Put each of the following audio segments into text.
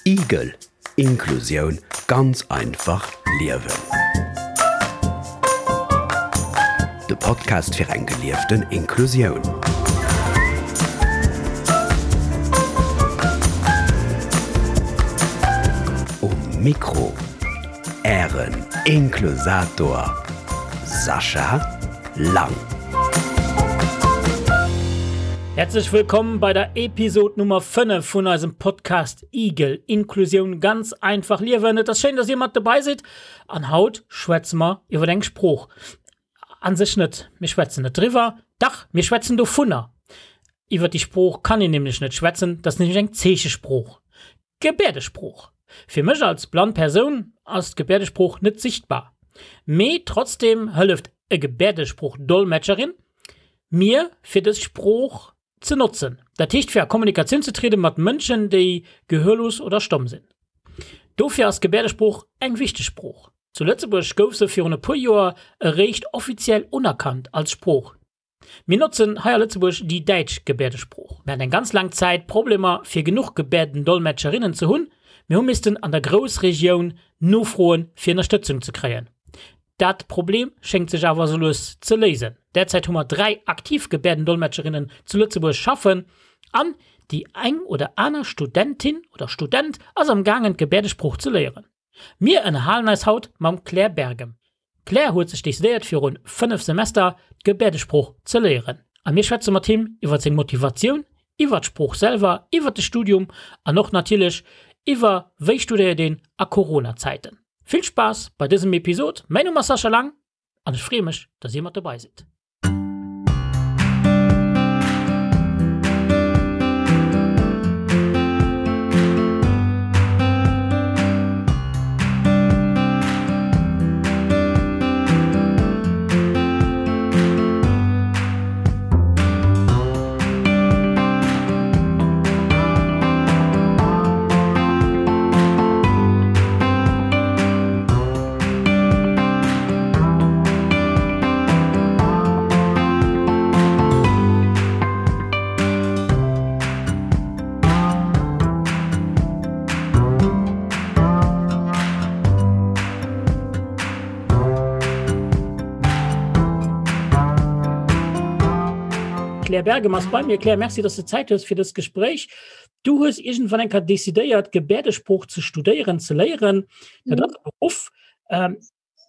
Igel, Inklusioun ganz einfach liewen. De Podcast fir eng gelieften Inklusioun. Um Mikro Ären Inklusator Sascha Lang. Herzlech wëllkomm bei der Episode Nummer 5 vun eisem Podcast Igel, Inklusioun ganz einfach liewen. Et ass schéin, dass dir mat dobäi sidd an haut schwätze mer iwwer eng Sprooch. An sech net, mir schwätzen net driwwer, dach, mir schwätzen dovunner. Iwwer déi Sprooch kann een nämlech net schwätzen, dat ass nämlech eng Zeechesprooch. D'Gebäerdesprooch. Fir mech als blann Persoun ass d'Gebäerdesprooch net sichtbar, mee trotzdem hëlleft e Gebäerdesprooch-Dolmetscherin mir fir dës Sprooch ze notzen, dat heescht fir a Kommunikatioun ze triede mat Mënschen déi gehörlos oder stomm sinn. Dofir ass d'Gebäerdesprooch eng wichteg Sprooch. Zu Lëtzebuerg gouf se virun e puer Joer eréischt offiziell unerkannt als Sprooch. Mir notzen hei a Lëtzebuerg déi däitsch Gebäerdesprooch. Mir haten eng ganz laang Zäit Problemer fir genuch Gebäerdendolmetscherinnen ze hunn. Mir hu missten an der Groussregioun nofroen fir Ënnerstëtzung ze kréien. Dat Problem schéngt sech awer sou lues ze léisen. Derzäit hu mer 3 aktiv Gebäerdendolmetscherinnen zu Lëtzebuerg schaffen an déi eng oder aner Studentin oder Student ass am gaangen d'Gebäerdesprooch ze léieren. Mir ënnerhalen eis haut mam Claire Bergem. D'Claire huet sech decidéiert virun 5 Semester d'Gebäerdesprooch ze léieren a mir schwätze mat him iwwer seng Motivatioun, iwwer d'Sprooch selwer, iwwer de Studium an och natierlech iwwer wéi studéiert een a Corona-Zäiten. Vill Spaass bei dësem Episod, mäin Numm ass Sascha Lang an ech freeë mech, dass dir mat dobei sidd. Claire Bergem ass bei mir. Claire, merci, dass du Zäit hues fir dëst Gespréich. Du hues iergendwann eng Kéier decidéiert, Gebäerdesprooch ze studéieren, ze léieren. Dat ass e Beruff. Ähm,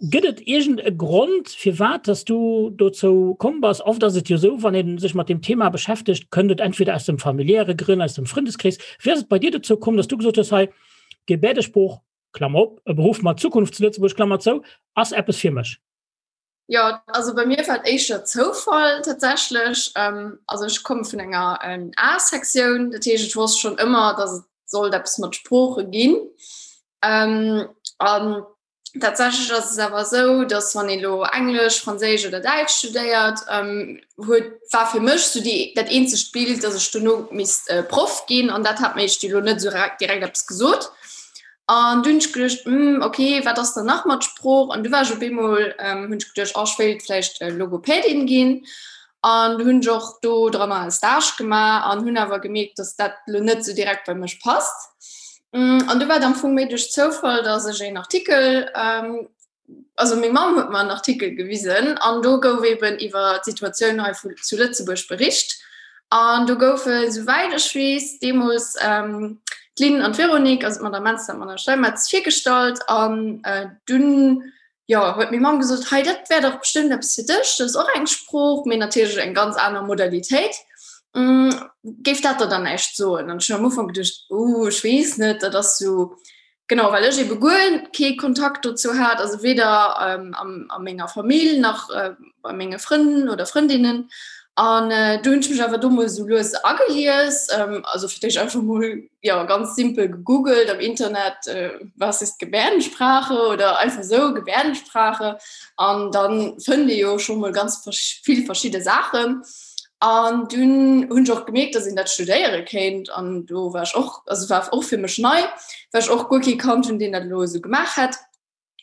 Gëtt et iergend e Grond, firwat dass du dozou komm bass? Oft ass et jo esou, wann ee sech mat deem Thema beschäftegt, kënnt et entweder aus dem familiäre Grënn, aus dem Frëndeskrees. Wéi ass et bei dir dozou komm, dass du gesot hues, hei, Gebäerdesprooch, Klammer op, e Beruff mat Zukunft zu Lëtzebuerg, Klammer zou, ass eppes fir mech? Jo, also bei mir war et éischter Zoufall tatsächlech. Also ech komme vun enger A-Sektioun, dat heescht ech wosst schonn ëmmer, datt et sollt eppes mat Sprooche ginn. An tatsächlech ass et awer esou, datt wann ee lo Englesch, Franséisch oder Däitsch studéiert, huet war fir mech sou déi dat eenzegt Bild, datt ech dono misst Proff ginn an dat hat mir éischt elo net esou direkt eppes gesot. An du hunn ech geduecht, hm, okay, wat ass dann nach mat Sprooch? An du war ech op eemol, ähm, hunn ech geduecht, oh, ech wéilt vläicht äh, Logopädin ginn. An du hunn ech och do dranner e Stage gemaach an hunn awer gemierkt, dass dat lo net sou direkt bei mech passt. Mm, an du war et am Fong méi duerch Zoufall, dass ech een Artikel ähm, also meng Mamm huet mer en Artikel gewisen an do gouf eben iwwer d'Situatioun hei vu, zu Lëtzebuerg bericht. An do goufe, souwäit ech weess, deemools ähm, d'Lynn an d'Véronique, also d'Madame Menster an d'Madame Steinmetz, virgestallt. An äh, dunn jo, huet meng Mamm gesot, hei, dat wär dach bestëmmt eppes fir dech, dat ass och eng Sprooch, mee natierlech eng ganz aner Modalitéit. Mm, géif dat der dann näischt soen? An ech hunn am Ufank geduecht, uh, ech weess net, dat ass sou, Genau, well ech ebe guer kee Kontakt dozou hat, also weder ähm, am, a menger Famill nach äh, bei menge Frënn oder Frëndinnen. An äh, du hunn ech mech awer do mol sou lues agelies, ähm, also fir d'éischt einfach mol ja, ganz simpel gegoogelt am Internet, äh, was ist Gebärdensprache oder einfach sou Gebärdensprache. An dann fënnt ee jo scho mol ganz vill verschidde Saachen. An dunn hunn ech och gemierkt, dass een dat studéiere kéint an do war ech och, also war och fir mech nei, well ech och guer kee kannt hunn, deen dat elo esou gemaach hätt.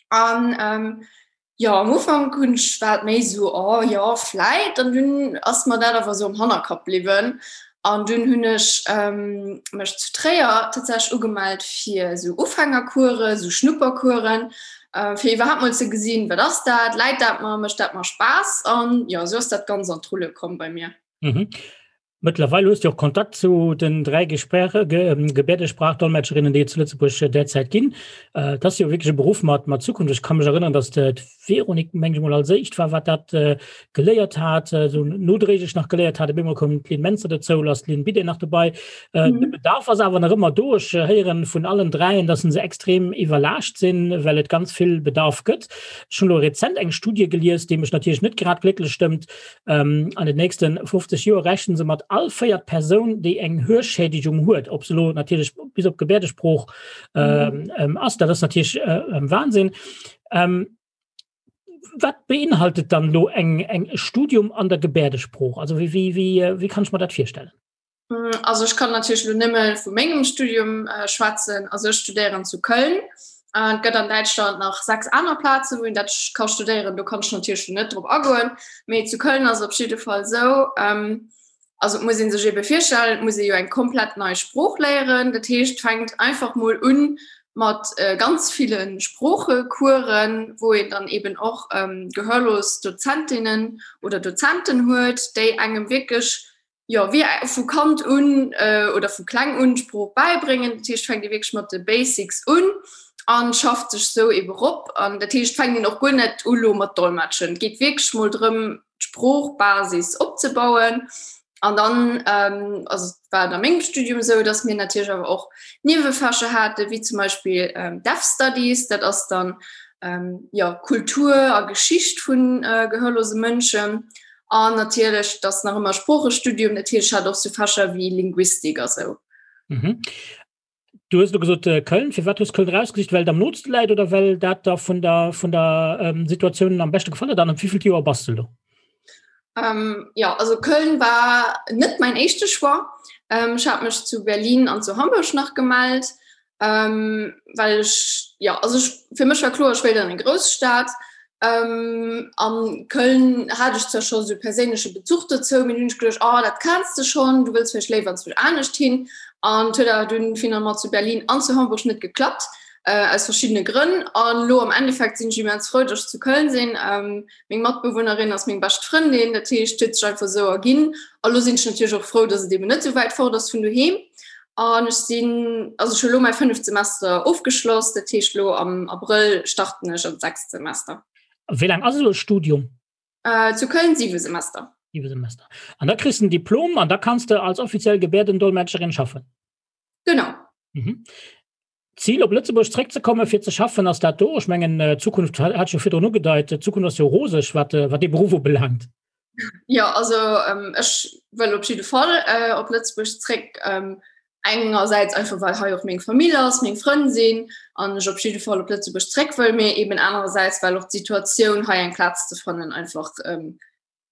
An ähm, jo, am Ufank hunn ech, war et méi esou, oh jo, vläit, an dunn ass mer dat awer esou am Hannerkapp bliwwen. An dunn hunn ech mech zu Tréier tatsächlech ugemellt fir esou Ufängercoursen, esou Schnuppercoursen, fir iwwerhaapt mol ze gesinn, wat ass dat, läit dat mer, mécht dat mer Spaass? An jo, esou ass dat Ganzt an d'Rulle komm bei mir. Mhm. Mëttlerweil hues du och Kontakt zu den 3 Gesprache, Gebärdesprachdolmetscherinnen, déi et zu Lëtzebuerg derzäit ginn. Et ass jo wierklech e Beruff mat, mat Zukunft. Ech ka mech erënneren, datt d'Véronique, meng ech mol, als éischt war, wat dat geléiert hat, esou nodréiglech nach geléiert hat. Op eemol koum d'Lynn Mentzer dozou, elo ass d'Lynn Bidé nach dobei. De Bedarf ass awer nach ëmmer do. Ech héieren vun allen dräien, datt se extrem iwwerlaascht sinn, well et ganz vill Bedarf gëtt. Ech hunn elo rezent eng Studie gelies, déi mech natierlech net grad glécklech stëmmt, Ähm, an den nächsten 50 Joer rechnen se mat all véiert Persoun, déi eng Hörschädigung huet, ob se lo natierlech bis op Gebärdesprooch ähm, ähm, ass, dat ass natierlech äh, ähm, Wahnsinn. Ähm, wat beinhaltet dann lo eng eng Studium an der Gebärdesprooch? Also wie, wie, wie, äh, wie kann ich mir dat virstellen? Mm, also ech kann natierlech lo nëmme vu mengem Studium äh, schwätzen. Also ech studéieren zu Köln. Äh, et gëtt an Däitschland nach 6 aner Plazen, wou een dat ka studéieren. Do kann ech natierlech lo net drop agoen. Mee zu Köln ass et op jidde Fall esou, ähm, also et muss ee sech ebe virstellen, et muss ee jo eng komplett nei Sprooch léieren. Dat heescht, et fänkt einfach mol un mat äh, ganz ville Sproochecoursen, wou een dann eben och ähm, gehörlos Dozentinnen oder Dozenten huet, déi engem wierklech jo, wéi vu Kand un oder vu kleng un d'Sprooch bäibréngen. Dat heescht, fänkt ee wierklech mat de Basics un an schafft sech sou ebe rop. An dat heescht, fänkt een och guer net u lo mat Dolmetschen. Et geet wierklech mol drëm, d'Sproochbasis opzebauen. An dann, also et war et a mengem Studium esou, datt mir natierlech awer och Niewefächer haten, wéi zum Beispill Deaf Studies, dat ass dann, jo, Kultur a Geschicht vu gehörlose Mënschen. An natierlech, et ass nach ëmmer Sproochestudium, natierlech hat och sou Fächer wéi Linguistik a sou. Mhm. Du hues elo gesot äh, Köln. Firwat hues Köln rausgesicht? Well et am nootste läit oder well dat der vun der, vun der ähm, Situatioun am beschte gefall huet? An am wievielten Joer bass du elo? Ähm, ja, also Köln war net mein éischte Choix. Ähm, ech hat mech zu Berlin an zu Hamburg nach gemellt. Ähm, well ech, ja, also ech, fir mech war kloer, ech wéilt an eng Grousstad. Ähm, an Köln hat ech zwar scho sou perséinleche Bezuch dozou, mee dunn hunn ech geduecht, oh, dat kenns de schonn, du wëlls vläicht léiwer anzwousch anescht hin. An et huet awer dunn finalement zu Berlin an zu Hamburg net geklappt, äh, aus verschiddene Grënn. An lo am Endeffekt sinn ech immens frou, dass ech zu Köln sinn. Ähm, meng Matbewunnerin ass meng bescht Frëndin, dat heescht, et huet sech einfach esou erginn. A lo sinn ech natierlech och frou, dass et eben net esou wäit fort ass vun doheem. An ech sinn, also ech hu lo mäi fënneft Semester ofgeschloss, dat heescht lo am Abrëll starten ech an d'sechst Semester. Wéi laang ass esou e Studium? Äh, zu Köln siwe Semester. Siwe Semester. An da kriss de en Diplom an da kanns de als offiziell Gebäerdendolmetscherin schaffen? Genau. Mhm. D'Zil op Lëtzebuerg zréckzekommen fir ze schaffen, ass dat do? Ech mengen d'Zukunft hat ech jo virdrun ugedeit, d'Zukunft ass jo roseg wat wat dee Beruff ubelaangt. Jo, also ech wëll op jidde Fall op Lëtzebuerg zréck. Engersäits einfach well hei och meng Famill ass, meng Frënn sinn an ech op jidde Fall op Lëtzebuerg zréck wëll, mee eben anerersäits well och d'Situatioun hei eng Plaz ze fannen einfach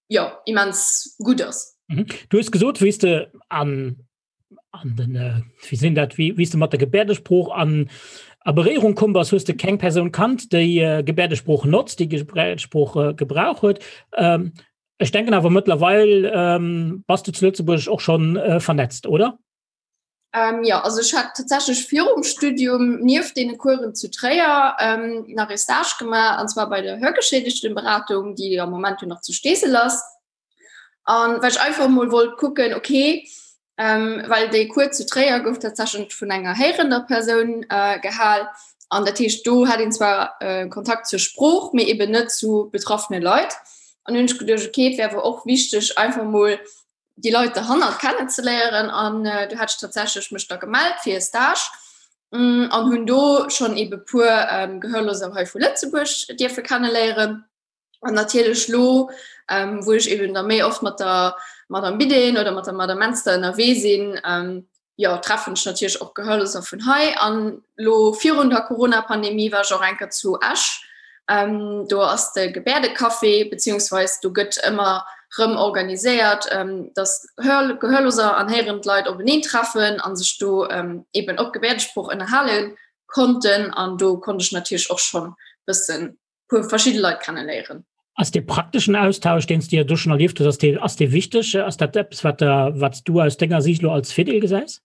jo immens gutt ass. Du hues gesot, wéi s de an an den äh, wie sinn dat wie wie du mat der Gebärdesprooch an a Beréierung komm bass, hues de keng Persoun kannt, déi äh, Gebärdesprooch notzt, déi Gebärdesprooch äh, Gebrauch huet. Ähm, ech denken awer mëttlerweil ähm, bass du zu Lëtzebuerg och schon äh, vernetzt, oder? Ähm, ja, also ech hat tatsächlich virum Studium nieft deene Coursen zu Tréier ähm, nach e Stage gemaach, an zwar bei der Hörgeschädigtenberatung, déi am Moment jo nach zu Steesel ass. An well ech einfach mol wollt kucken, okay, ähm, well déi Cours zu Tréier gouf tatsächlich vun enger héierender Persoun äh, gehal. An dat heescht, do hat een zwar äh, Kontakt zur Sprooch, mee eben net zu betraffene Leit. An hunn ech geduecht, okay, et wär awer och wichteg, einfach mol déi Leit derhannert kennenzeléieren. An äh, du hat ech tatsächlich mech da gemellt fir e Stage mm, an hunn do schonn ebe puer ähm, Gehörloser hei vu Lëtzebuerg dierfe kenneléieren. An natierlech lo, ähm, wou ech eben da méi oft mat der Madame Bidden oder mat der Madame Menster ënnerwee sinn, ähm, jo, treffen ech natierlech och Gehörloser vun hei. An lo virun der Corona-Pandemie war ech och eng Kéier zu Esch. Ähm, do ass de Gebäerdecafé, beziehungsweis do gëtt ëmmer rëm organiséiert, ähm, dass Hör Gehörloser an héierend Leit openeen treffen an sech do ähm, eben op Gebäerdesprooch ënnerhale konnten. An do konnt ech natierlech och schonn bëssen puer verschidde Leit kennenléieren. Ass dee prakteschen Austausch, deen s de jo do schonn erlieft hues, ass dee, ass dee wichteg? Ass dat eppes, wat der, wat s du aus denger Siicht elo als Virdeel gesäis?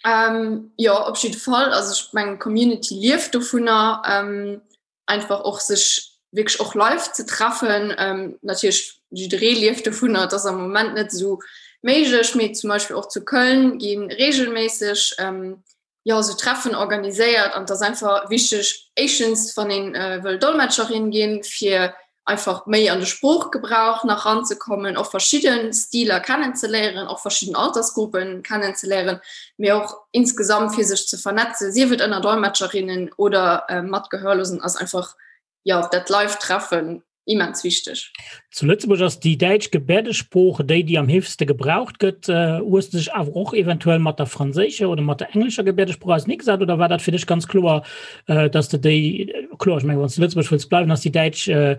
Ähm, jo, op jidde Fall. Also ech mengen, d'Community lieft dovunner, ähm, einfach och sech wierklech och live ze treffen. Ähm, natierlech jidderee lieft dovunner, et ass am Moment net esou méiglech, mee zum Beispill och zu Köln gi reegelméisseg ähm, jo, esou Treffen organiséiert an et ass einfach wichteg, éischtens wann een äh, wëll Dolmetscherin ginn, fir einfach méi an de Sproochgebrauch nach ranzekommen, och verschidde Stiler kennenzeléieren, och verschidden Altersgruppen kennenzeléieren, mee och insgesamt fir sech ze vernetzen, sief et ënner Dolmetscherinnen oder äh, mat Gehörlosen, ass einfach ja dat Live-Treffen immens wichteg. Zu Lëtzebuerg ass déi däitsch Gebäerdesprooch déi, déi am heefegste gebraucht gëtt. Äh, hues de dech awer och eventuell mat der franséischer oder mat der englescher Gebäerdesprooch auserneegesat oder war dat fir dech ganz kloer, äh, dass de déi, kloer, ech mengen, wann s de Lëtzebuerg wëlls bleiwen, ass déi däitsch äh,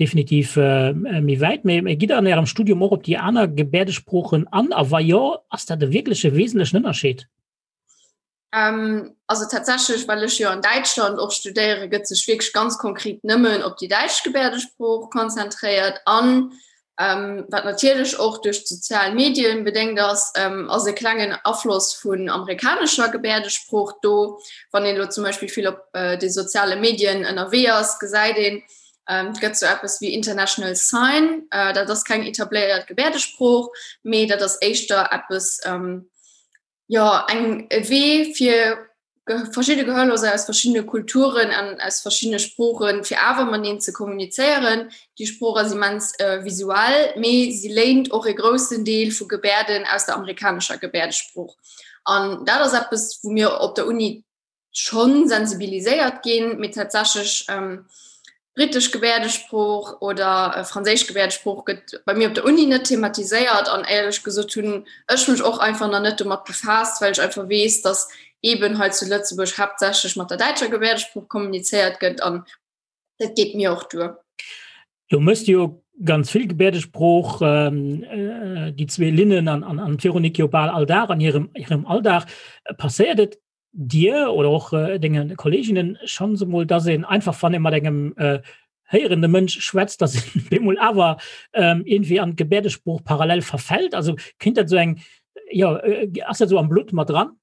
definitiv äh, méi wäit. Mee, mee gitt der an Ärem Studium och op déi aner Gebäerdesproochen an? A wa jo, ass dat e wierkleche wesentlechen Ënnerscheed? Ähm, also tatsächlech, well ech jo an Däitschland och studéiere, gëtt sech wierklech ganz konkret nëmmen op déi däitsch Gebäerdesprooch konzentréiert an ähm, wat natierlech och duerch d'sozial Medien bedéngt ass, ähm, ass e klengen Afloss vun amerikanescher Gebäerdesprooch do. Wann een elo zum Beispill vill op äh, de soziale Medien ënnerwee ass, gesäit een, ähm, et gëtt sou eppes wéi International Sign, äh, dat ass keng etabléiert Gebäerdesprooch, mee dat ass éischter eppes, ähm, jo eng e Wee fir verschidde Gehörloser aus verschiddene Kulturen an aus verschiddene Sproochen, fir awer mateneen ze kommunizéieren. Déi Sprooch ass immens äh, visuell, mee si léint och e groussen Deel vu Gebärden aus der amerikanescher Gebärdesprooch. An dat ass eppes, wou mir op der Uni schonn sensibiliséiert ginn, mee tatsächlech ähm, britesch Gebäerdesprooch oder äh, franséisch Gebäerdesprooch gëtt bei mir op der Uni net thematiséiert an éierlech gesot hunn ech mech och einfach nach net domat befaasst, well ech einfach weess, dass eben hei zu Lëtzebuerg haaptsächlech mat der däitscher Gebäerdesprooch kommunizéiert gëtt an dat geet mir och duer. Du mëss jo ganz vill Gebäerdesprooch, ähm, äh, déi zwee Linnen an, an, an d'Véronique jo bal all Dag an hirem, hirem Alldag. Passéiert et dir oder och äh, denge Kolleginnen schonns emol, dass een einfach wann ee mat engem äh, héierende Mënsch schwätzt, dass een bemol awer ähm, irgendwie an d'Gebäerdesprooch parallel verfällt? Also kinnt dat so eng ja, äh, ass dat so am Blutt mat dran?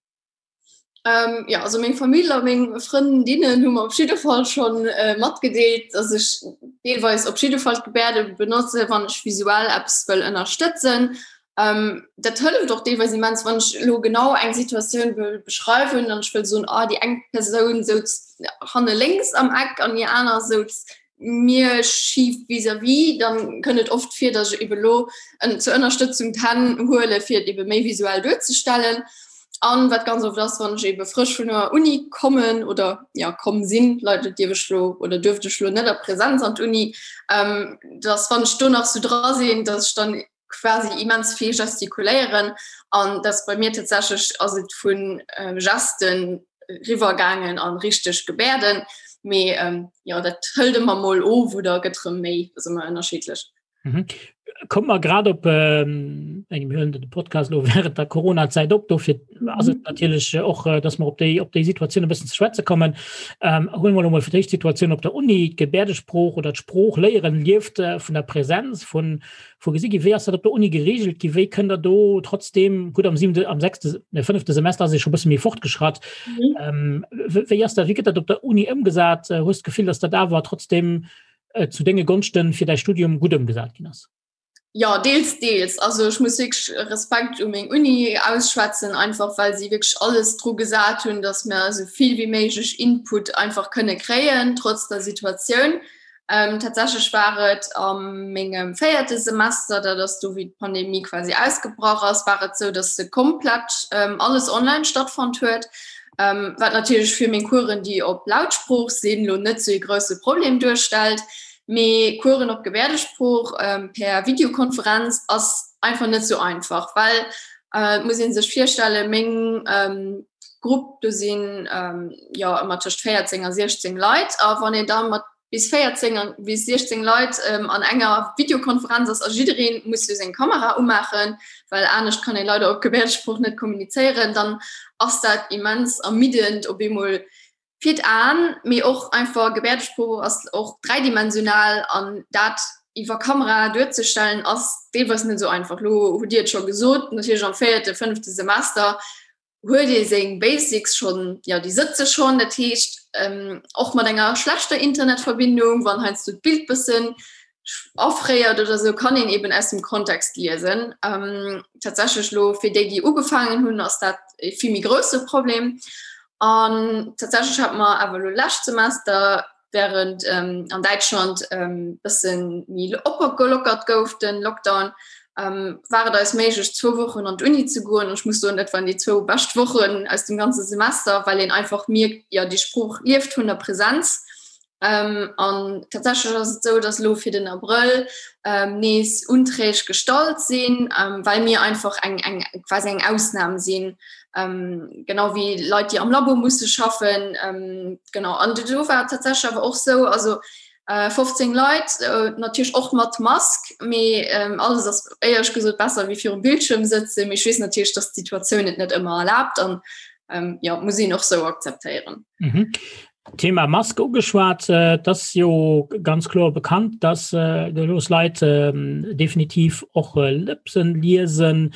Ähm, ja, also meng Famill a meng Frëndinnen hu mer op jidde Fall schon äh, matgedeelt, dass ech deelweis op jidde Fall d'Gebärde benotze, wann ech visuell eppes wëll ënnerstëtzen. Ähm, dat hëlleft och deelweis immens, wann ech elo genau eng Situatioun wëll beschreiwen an ech wëll soen, ah, déi eng Persoun souz hanne lénks am Eck an déi aner souz mir schif vis-à-vis, dann kënnt et oft vir, dass ech ebe lo zur Ënnerstëtzung d'Hänn huele fir et ebe méi visuell duerzestellen. An wat ganz oft ass, wann ech ebe frësch vun der Uni kommen oder ja komm sinn, leider dierf ech lo oder duerft ech lo net a Präsenz an d'Uni, ähm, dass wann ech do nach sou dra sinn, dass ech dann quasi immens vill gestikuléieren an das bei mir tatsächlich ass et vun äh, Gesten riwwergaangen an richteg Gebärden mee ähm, ja dat hëlt ëmmer mol of oder gëtt rëm méi das ëmmer ënnerschiedlech. Mhm. Kommt mer grad op ähm, engem hören de Podcast lo während der Corona-Zäit op, dofir ass et mhm. natierlech äh, och, äh, dass mer op déi op déi Situatioun e bëssen ze schwätze kommen. Ähm, huelen mer mol fir d'éischt d'Situatioun op der Uni, d'Gebäerdesprooch oder d'Sprooch léieren lieft äh, vun der Präsenz, vun Vu gesi gi. Wéi ass dat op der Uni geregelt gi? Wéi kënnt der do trotzdem, gutt am siwente, am sechste, ne fënnefte Semester ass ee scho bësse méi fortgeschratt. Mhm. Ähm, wéi ass dat, wéi gëtt dat op der Uni ëmgesat? Äh, hues d'Gefill, datt dat awer trotzdem äh, zu denge Gonschten fir däi Studium gutt ëmgesat ginn ass? Ja, deels, deels. Also ech muss wierklech Respekt u meng Uni ausschwätzen, einfach well si wierklech alles dru gesat hunn, datt mir esou vill wéi méiglech Input einfach kënne kréien, trotz der Situatioun. Ähm, tatsächlech war et am mengem véierte Semester, dat ass do wéi d'Pandemie quasi ausgebrach ass, war et sou, dass se komplett ähm, alles online stattfonnt huet. Ähm, wat natierlech fir meng Coursen, déi op Lautsprooch sinn, lo net sou e grousse Problem duerstellt. Mee Coursen op Gebäerdesprooch ähm, per Videokonferenz ass einfach net sou einfach, well äh, muss een sech virstellen, meng ähm, Grupp do sinn ähm, jo ëmmer tëscht 14 a 16 Leit a wann een da mat bis 14 an bis 16 Leit ähm, an enger Videokonferenz ass a jiddereen muss jo seng Kamera umaachen, well anescht kann ee leider op Gebäerdesprooch net kommunizéieren, dann ass dat immens ermiddend op eemol. Fir d'Aen, mee och einfach Gebäerdesprooch ass och dräidimensional an dat iwwer Kamera duerzestellen ass deelweis net esou einfach. Lo hutt Dir et scho gesot, natierlech am véierte, fënnefte Semester huet ee seng Basics schonn, jo déi sëtze schonn. Dat heescht och mat enger schlechter Internetverbindung, wann heiansdo d'Bild bëssen afréiert oder sou, kann een eben aus dem Kontext liesen. Tatsächlech lo fir déi, déi ugefaangen hunn, ass dat e vill méi grousse Problem. An tatsächlech hat mer awer lo lescht Semester, während ähm, an Däitschland ähm, bëssen méi opgelockert gouf den Lockdown, ähm, war et eis méiglech zwou Wochen an d'Uni ze goen. Ech muss soen, dat waren déi zwou bescht Wochen aus dem ganze Semester, well een einfach mierkt, ja déi Sprooch lieft vun der Präsenz. Ähm, an tatsächlech ass et sou, dass lo fir den Abrëll ähm, nees Unträg gestallt sinn, ähm, well mir einfach eng, eng quasi eng Ausnam sinn, ähm, genau wéi Leit, déi am Labo musse schaffen. Ähm, genau an do war tatsächlech awer och sou, also äh, 15 Leit, äh, natierlech och mat Mask, mee ähm, alles ass éierlech gesot besser wéi virum Bildschirm sëtzen. Mee ech weess natierlech, dass d'Situatioun et net ëmmer erlaabt an ähm, ja, muss een och sou akzeptéieren. Mhm. Thema Maske ugeschwat, äh, das jo ganz kloer bekannt, dass äh, los Leit äh, definitiv och äh, Lëpsen liesen.